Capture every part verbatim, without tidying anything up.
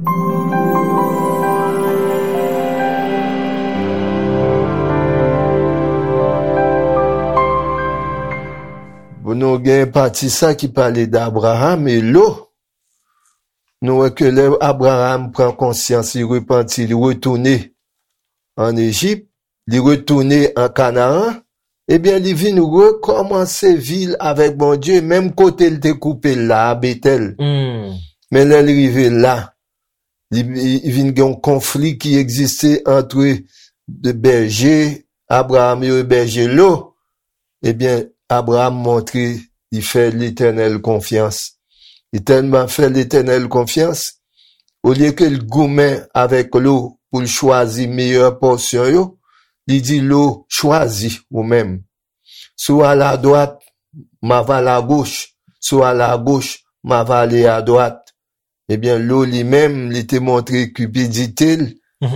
Bon, nou gen pati sa ki pale d Abraram e Lo. Nou wè ke lè Abraram pran konsyans, li repanti, li retounen ann Ejip, li retounen an Kanaan, ebyen, li vin rekòmanse vi l avèk Bondye, menm kote l te koupe l la, a Betèl. Men lè l rive la, li, li vin gen yon konfli ki egziste ant de bèje Abraram yo e bèje Lo. Ebyen, Abraram montre li fè Letènèl konfyans. Li tèlman fè Letènèl konfyans, olye ke l goumen avèk Lo pou l chwazi meyè pòsyon yo, li di Lo, chwazi ou menm. Si w al adwat, m ava al agoch. Si w al agoch, m ava ale adwat. Ebyen, Lo li menm, li te montre kipidite l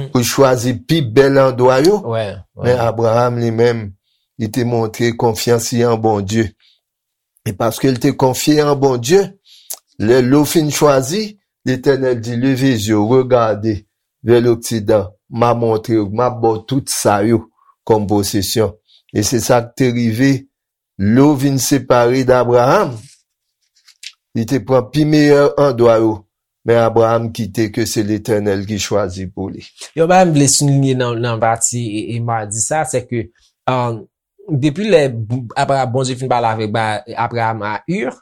pou l chwazi pi bèl andwa yo. Men Abraram li menm, li te montre konfyans li an Bondye. E paske l te konfye an Bondye, lè Lo fin chwazi, Letènèl di, leve zye w, regade vè loksidan, m a montre w, m a ba w tout sa yo kòm posesyon. E se sa k te rive, Lo vin separe d Abraram. Li te pran pi meyè andwa yo, men Abraram kite ke se Letènèl ki chwazi pou li. Yon bagay m vle souliye nan, nan pati e, e m a di sa, se ke, um, depi lè Abra-, Bondye fin pale avèk Abraram a Ur,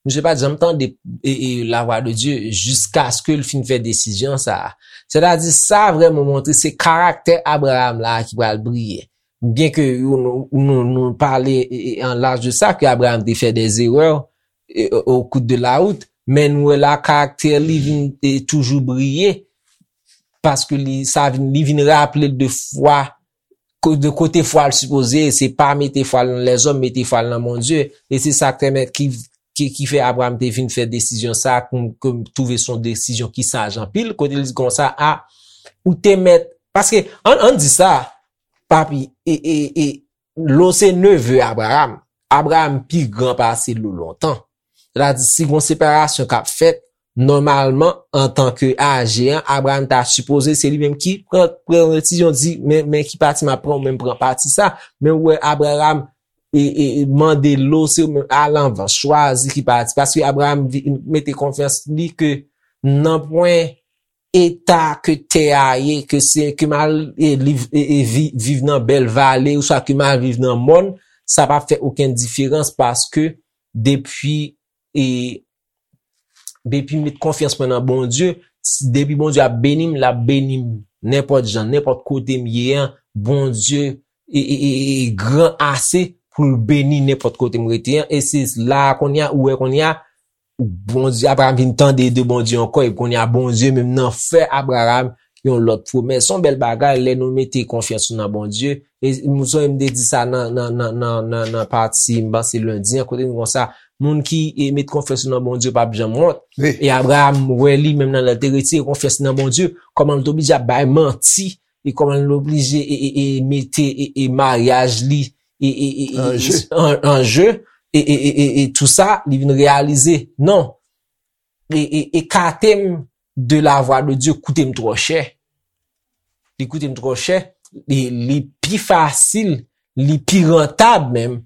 misye pa t janm tande e, e, lavwa de Dye jiskaske l fin fè desizyon sa a. Sètadi, sa vrèman montre se karaktè Abraram la ki pral briye. Byen ke nou, nou, nou pale e, e, an laj de sa, ke Abraram te fè dè erè e, o, o kout de la wout, men nou wè la karaktè li vin e, toujou briye, paske li, sa vin, li vin raple l de fwa, ko-, de kote fwa l sipoze ye, se pa mete fwa l nan lèzòm, mete fwa l nan Bondye. E se sa k pèmèt ki, ki, ki fè Abraram te vin fè desizyon sa, ke m, ke m twouve se yon desizyon ki saj anpil, kote l di konsa, a, ou te mèt, paske, ann, ann di sa, papi, e, e, e, Lo se neve Abraram. Abraram pi gran pase Lo lontan. Sètadi, si gon separasyon k ap fèt, nòmalman, antanke aje an, Abraram ta sipoze se li menm ki pran, pran desizyon, di, men, men ki pati m ap pran, ou menm pran pati sa. Men ou wè Abraram e, e, e mande Lo, se ou menm, al anvan, chwazi ki pati. Paske Abraram vi-, mete konfyans li ke nanpwen eta ke tè a ye, ke se, ke m al, e, liv, e, e, vi-, viv nan bèl vale, oswa ke m al viv nan mòn, sa p ap fè okenn diferans, paske depi, e, depi m met konfyans mwen nan Bondye, s-, depi Bondye ap beni m, l ap beni m nenpòt jan, nenpòt kote m ye an, Bondye e, e, e, e gran ase pou l beni nenpòt kote m rete an. E se la a kounye a, ou wè kounye a, Bondye, Abraram vin tande de Bondye ankò, epi kounye a Bondye menm nan fè Abraram yon lòt pwomès. Se yon bèl bagay lè nou mete konfyans nou nan Bondye. E m sonje m te di sa nan, nan, nan, nan, nan, nan pati, m panse lendi an, kote nou konsa, moun ki e, met konfyans yo nan Bondye p ap janm wont. E Abraram wè li menm nan lè l te retire konfyans li nan Bondye, kòman l te oblije ap bay manti, e kòman l oblije e, e, e mete e, e maryaj li e, e, e, e, an je, e, e, e, e, e tou sa, li vin reyalize, non, e, e, ekate m de la vwa de Dye koute m twò chè. Li koute m twò chè. Li, li pi fasil, li pi rantab menm,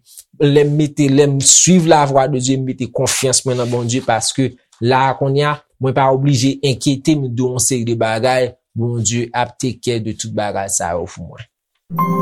lè m mete, lè m swiv la vwa de Dye, m mete konfyans mwen nan Bondye, paske la a kounye a, mwen pa oblije enkyete m de yon seri de bagay, Bondye ap take care de tout bagay sa yo pou mwen.